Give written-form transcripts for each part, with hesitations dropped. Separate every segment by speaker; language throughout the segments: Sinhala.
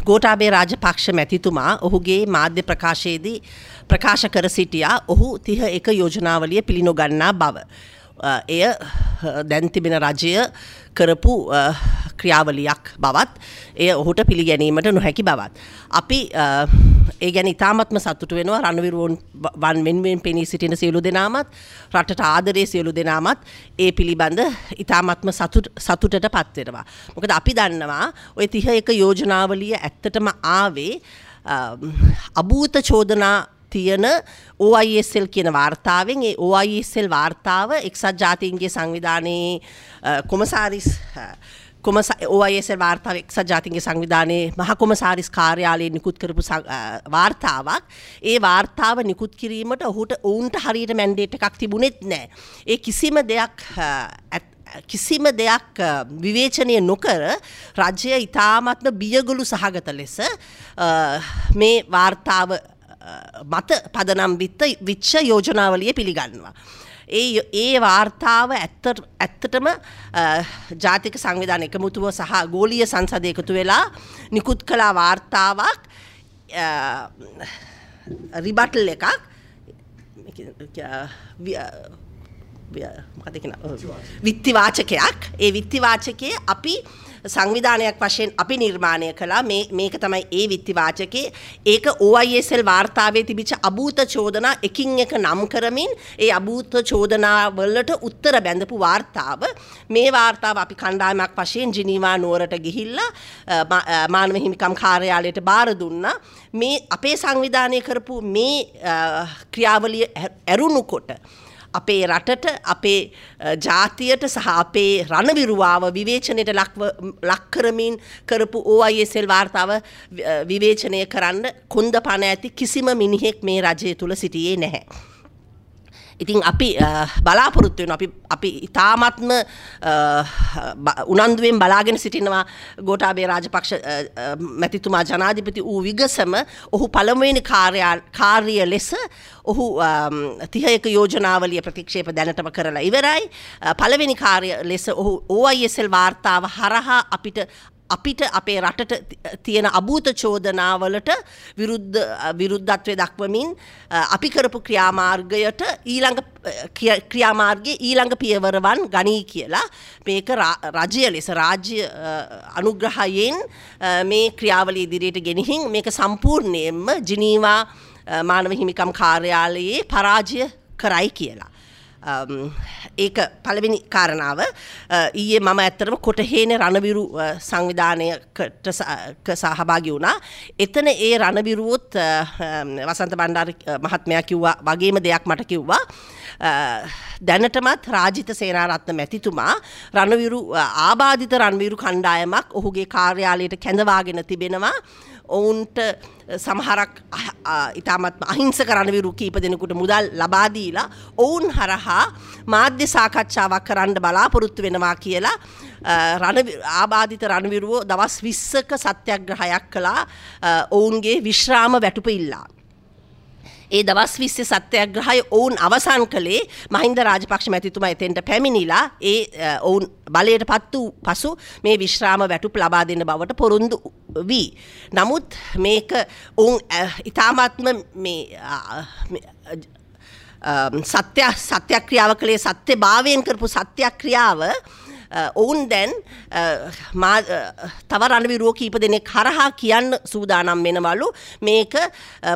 Speaker 1: ගෝඨාභය රාජපක්ෂ මැතිතුමා ඔහුගේ මාධ්‍ය ප්‍රකාශයේදී ප්‍රකාශ කර සිටියා ඔහු 31 යෝජනාවලිය පිළිනොගන්නා බව. එය දැන් තිබෙන රජය කරපු ක්‍රියාවලියක් බවත් එය ඔහුට පිළිගැනීමට නොහැකි බවත්. අපි ඒ ගැන ඉතාමත්ම සතුටු වෙනවා. රණවිරුවන් වෙනුවෙන් පෙනී සිටින සියලු දෙනාමත් රටට ආදරේ සියලු දෙනාමත් ඒ පිළිබඳ ඉතාමත්ම සතුටට පත් වෙනවා. මොකද අපි දන්නවා ඔය 31 යෝජනාවලිය ඇත්තටම ආවේ අභූත චෝදනා තියෙන OISL කියන වාර්තාවෙන්. ඒ OISL වාර්තාව එක්සත් ජාතීන්ගේ සංවිධානයේ කොමසාරිස් OISL වාර්තාව එක්සත් ජාතීන්ගේ සංවිධානයේ මහ කොමසාරිස් කාර්යාලයෙන් නිකුත් කරපු වාර්තාවක්. ඒ වාර්තාව නිකුත් කිරීමට ඔවුන්ට හරියට මැන්ඩේට් එකක් තිබුණෙත් නෑ. ඒ කිසිම දෙයක් විවේචනය නොකර රජය ඉතාමත්ම බියගොළු සහගත ලෙස මේ වාර්තාව මත පදනම් විච්ච යෝජනාවලිය පිළිගන්නවා. ඒ වාර්තාව ඇත්තටම ජාතික සංවිධාන එකමුතුව සහ ගෝලීය සංසදය එකතු වෙලා නිකුත් කළ වාර්තාවක්, රිබටල් එකක්, මොකද කියන විත්තිවාචකයක්. ඒ විත්තිවාචකයේ අපි සංවිධානයක් වශයෙන් අපි නිර්මාණය කළා. මේක තමයි ඒ විත්තිවාචකේ. ඒක OISL වාර්තාවේ තිබිච්ච අභූත චෝදනා එකින් එක නම් කරමින් ඒ අභූත චෝදනා වලට උත්තර බැඳපු වාර්තාව. මේ වාර්තාව අපි කණ්ඩායමක් වශයෙන් ජිනීවා නුවරට ගිහිල්ලා මානව හිමිකම් කාර්යාලයට බාර දුන්නා. මේ අපේ සංවිධානය කරපු මේ ක්‍රියාවලිය ඇරුණු කොට අපේ රටට, අපේ ජාතියට සහ අපේ රණවිරුවාව විවේචනයට ලක් කරමින් කරපු OISL වාර්තාව විවේචනය කරන්න කොන්ද පණ ඇති කිසිම මිනිහෙක් මේ රජය තුල සිටියේ නැහැ. ඉතින් අපි බලාපොරොත්තු වෙනවා, අපි ඉතාමත්ම උනන්දුවෙන් බලාගෙන සිටිනවා ගෝඨාභය රාජපක්ෂ මැතිතුමා ජනාධිපති වූ විගසම ඔහු පළමුවෙනි කාර්ය ලෙස ඔහු 31 යෝජනාවලිය ප්‍රතික්ෂේප දැනටම කරලා ඉවරයි. පළවෙනි කාර්ය ලෙස ඔහු OISL වාර්තාව හරහා අපිට අපේ රටට තියෙන අභූත චෝදනාවලට විරුද්ධත්වය දක්වමින් අපි කරපු ක්‍රියාමාර්ගයට ඊළඟ ක්‍රියාමාර්ගයේ ඊළඟ පියවරවන් ගනී කියලා මේක රජය ලෙස රාජ්‍ය අනුග්‍රහයෙන් මේ ක්‍රියාවලිය ඉදිරියට ගෙනihin මේක සම්පූර්ණයෙන්ම ජිනීවා මානව හිමිකම් කාර්යාලයේ පරාජය කරයි කියලා. ඒක පළවෙනි කාරණාව. ඊයේ මම ඇත්තටම කොටහේන රණවිරු සංවිධානයකට සහභාගී වුණා. එතන ඒ රණවිරුවොත් වසන්ත බණ්ඩාර මහත්මයා කිව්වා වගේම දෙයක් මට කිව්වා. දැනටමත් රාජිත සේනාරත්න මැතිතුමා රණවිරු ආබාධිත රණවිරු කණ්ඩායමක් ඔහුගේ කාර්යාලයට කැඳවාගෙන තිබෙනවා. ඔවුන්ට සමහරක් ඉතාමත්ම අහිංසක රණවිරු කීප දෙනෙකුට මුදල් ලබා දීලා ඔවුන් හරහා මාධ්‍ය සාකච්ඡාවක් කරන්න බලාපොරොත්තු වෙනවා කියලා ආබාධිත රණවිරුවෝ දවස් 20ක සත්‍යග්‍රහයක් කළා ඔවුන්ගේ විශ්‍රාම වැටුප ඉල්ලා. ඒ දවස් 20 සත්‍යග්‍රහය ඔවුන් අවසන් කළේ මහින්ද රාජපක්ෂ මැතිතුමා එතෙන්ට පැමිණිලා ඒ ඔවුන් බලයට පත් වූ පසු මේ විශ්‍රාම වැටුප් ලබා දෙන බවට පොරොන්දු වී. නමුත් මේක ඔවුන් ඉතාමත්ම මේ සත්‍යක්‍රියාව කළේ සත්‍යභාවයෙන් කරපු සත්‍යක්‍රියාව ඔවුන් දැන් තව රණවිරුවෝ කීප දෙනෙක් හරහා කියන්න සූදානම් වෙනවලු මේක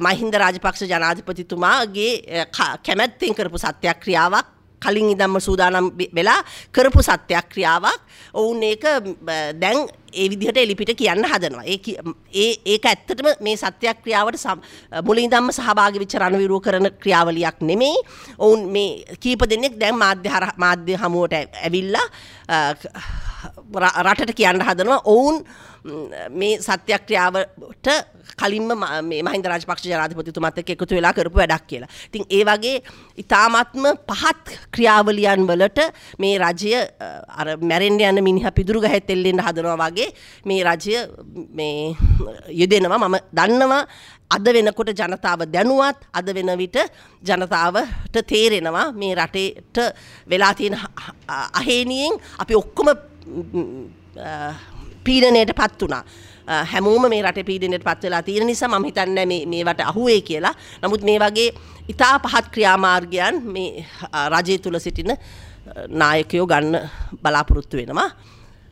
Speaker 1: මහින්ද රාජපක්ෂ ජනාධිපතිතුමාගේ කැමැත්තෙන් කරපු සත්‍යක්‍රියාවක්, කලින් ඉඳන්ම සූදානම් වෙලා කරපු සත්‍යක්‍රියාවක්. ඔවුන් ඒක දැන් ඒ විදිහට එලිපිට කියන්න හදනවා. ඒක ඇත්තටම මේ සත්‍යක්‍රියාවට මුලින් ඉඳන්ම සහභාගී වෙච්ච රණවිරුවෝ කරන ක්‍රියාවලියක් නෙමෙයි. ඔවුන් මේ කීප දෙනෙක් දැන් මාධ්‍ය හමුවට ඇවිල්ලා රටට කියන්න හදනවා ඔවුන් මේ සත්‍යක්‍රියාවට කලින්ම මේ මහින්ද රාජපක්ෂ ජනාධිපතිතුමත් එක්ක එකතු වෙලා කරපු වැඩක් කියලා. ඉතින් ඒ වගේ ඉතාමත්ම පහත් ක්‍රියාවලියන් වලට මේ රජය අර මැරෙන්න යන මිනිහා පිදුරු ගහෙත් එල්ලෙන්න හදනවා වගේ මේ රජය මේ යෙදෙනවා. මම දන්නවා අද වෙනකොට ජනතාව දැනුවත්, අද වෙන විට ජනතාවට තේරෙනවා මේ රටේට වෙලා තියෙන අහේනියෙන් අපි ඔක්කොම පීඩනයට පත් වුණා. හැමෝම මේ රටේ පීඩනයට පත් වෙලා තියෙන නිසා මම හිතන්නේ මේ මේවට අහුවේ කියලා. නමුත් මේ වගේ ඉතා පහත් ක්‍රියාමාර්ගයන් මේ රජය තුල සිටින නායකයෝ ගන්න බලාපොරොත්තු වෙනවා.